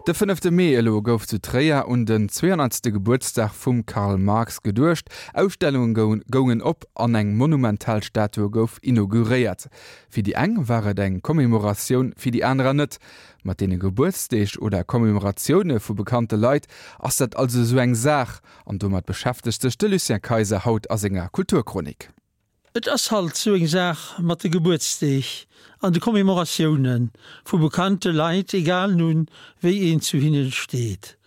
De fënnefte Mee elo gouf zu Tréier un den 200. Gebuertsdag vum Karl Marx geduecht. Ausstellunge goungen op an eng monumental Statue gouf inauguréiert. Fir déi eng war et eng Commemoratioun, fir déi anerer net. Mat deene Gebuertsdeeg oder Commemoratioune vu bekannte Leit ass dat also esou eng Saach. An domat beschäftegt sech de Lucien Kayser haut a senger Kulturchronik. Et ass halt sou eng Saach mat de Gebuertsdeeg an de Commémoratiounen vu bekannte Leit, egal nun wéi een zu hinnen steet.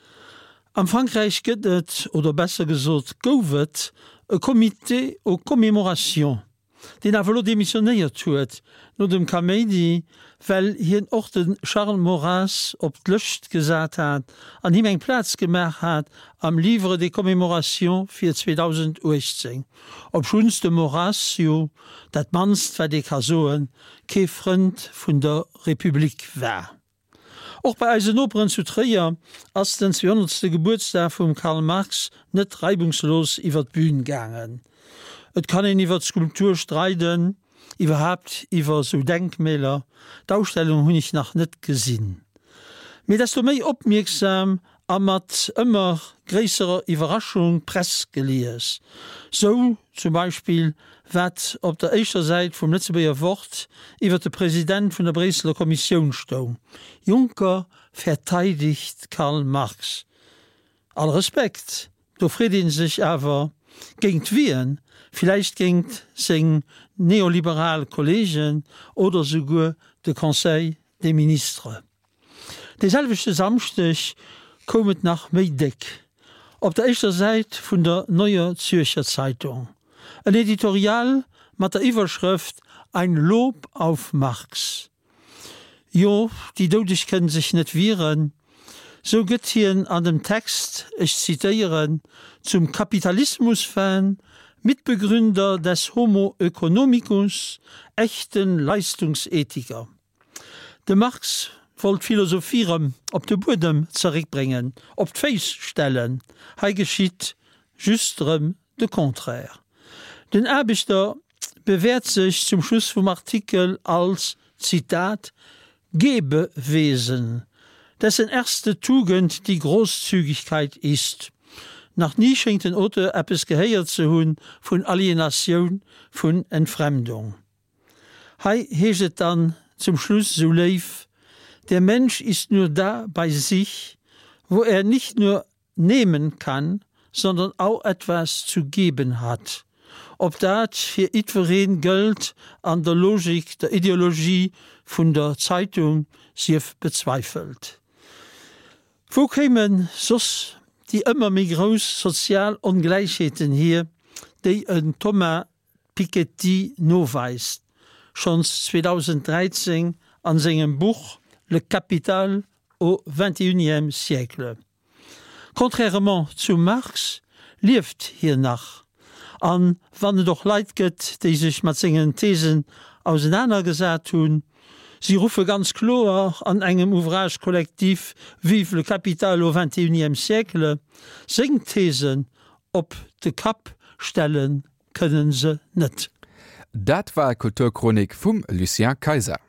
Am Frankräich gëtt et, oder besser gesot gouf et, e Comité aux commémorations. deen awer elo demissionéiert huet no dem Kaméidi, well hien och de Charles Maurras op d'Lëscht gesat hat an him eng Plaz gemaach hat am Livre des commémorations fir 2018, obschunns de Maurras jo, dat mannst wat ee ka soen, kee Frënd vun der Republik war. Och bei eisen Noperen zu Tréier ass den 200. Gebuertsdag vum Karl Marx net reibungslos iwwer d'Bühn gaangen. Et kann een iwwer d'Skulptur streiden, iwwerhaapt iwwer sou Denkmäler, d'Ausstellung hunn ech nach net gesinn. Mee desto méi opmierksam a mat ëmmer gréisserer Iwwerraschung d'Press gelies. Sou zum Beispill wat op der éischter Säit vum Lëtzebuerger Wort iwwer de President vun der Bréisseler Kommissioun stoung, Juncker verteidigt Karl Marx. All Respekt, do freet ee sech awer, géingt wien? Villäicht géingt seng neoliberal Kollegen oder souguer de Conseil des Ministres? Dee selwechte Samschdeg koum et nach méi déck op der éischter Säit vun der Neuer Zürcher Zeitung, en Editorial mat der Iwwerschrëft Ein Lob auf Marx. Jo, déi Doudeg kënnen sech net wieren, sou gëtt hien an dem Text, ech zitéieren, zum Kapitalismusfan, Mitbegründer des Homo oeconomicus, echten Leistungsethiker. De Marx wollt d'Philosophie rëm op de Buedem zeréckbréngen, op d'Féiss stellen. Hei geschitt just rëm de Contraire. Den Aarbechter bewäert sech zum Schluss vum Artikel als, Zitat, Gebewesen, dessen erste Tugend die Großzügigkeit ist. Nach ni schéngt den Auteur eppes gehéiert ze hunn vun Alienatioun, vun Entfremdung. Hei heescht et dann zum Schluss sou léif, Der Mensch ist nur da bei sich, wo er nicht nur nehmen kann, sondern auch etwas zu geben hat. Ob dat fir jiddwereen gëllt an der Logik der Ideologie vun der Zeitung, sief bezweifelt. Wou kéime soss déi ëmmer méi grouss sozial Ongläichheeten hier, déi en Thomas Piketty noweist, schonns 2013 an sengem Buch Le Capital au XXIe siècle. Contrairement zum Marx lieft hien nach, an wann et och Leit gëtt, déi sech mat sengen Thesen ausenanergesat hunn, si ruffe ganz kloer an engem Ouvrage collectif Vive le capital au XXIe siècle seng Thesen op de Kapp stelle kënnen se net. Dat war d'Kulturchronik vum Lucien Kayser.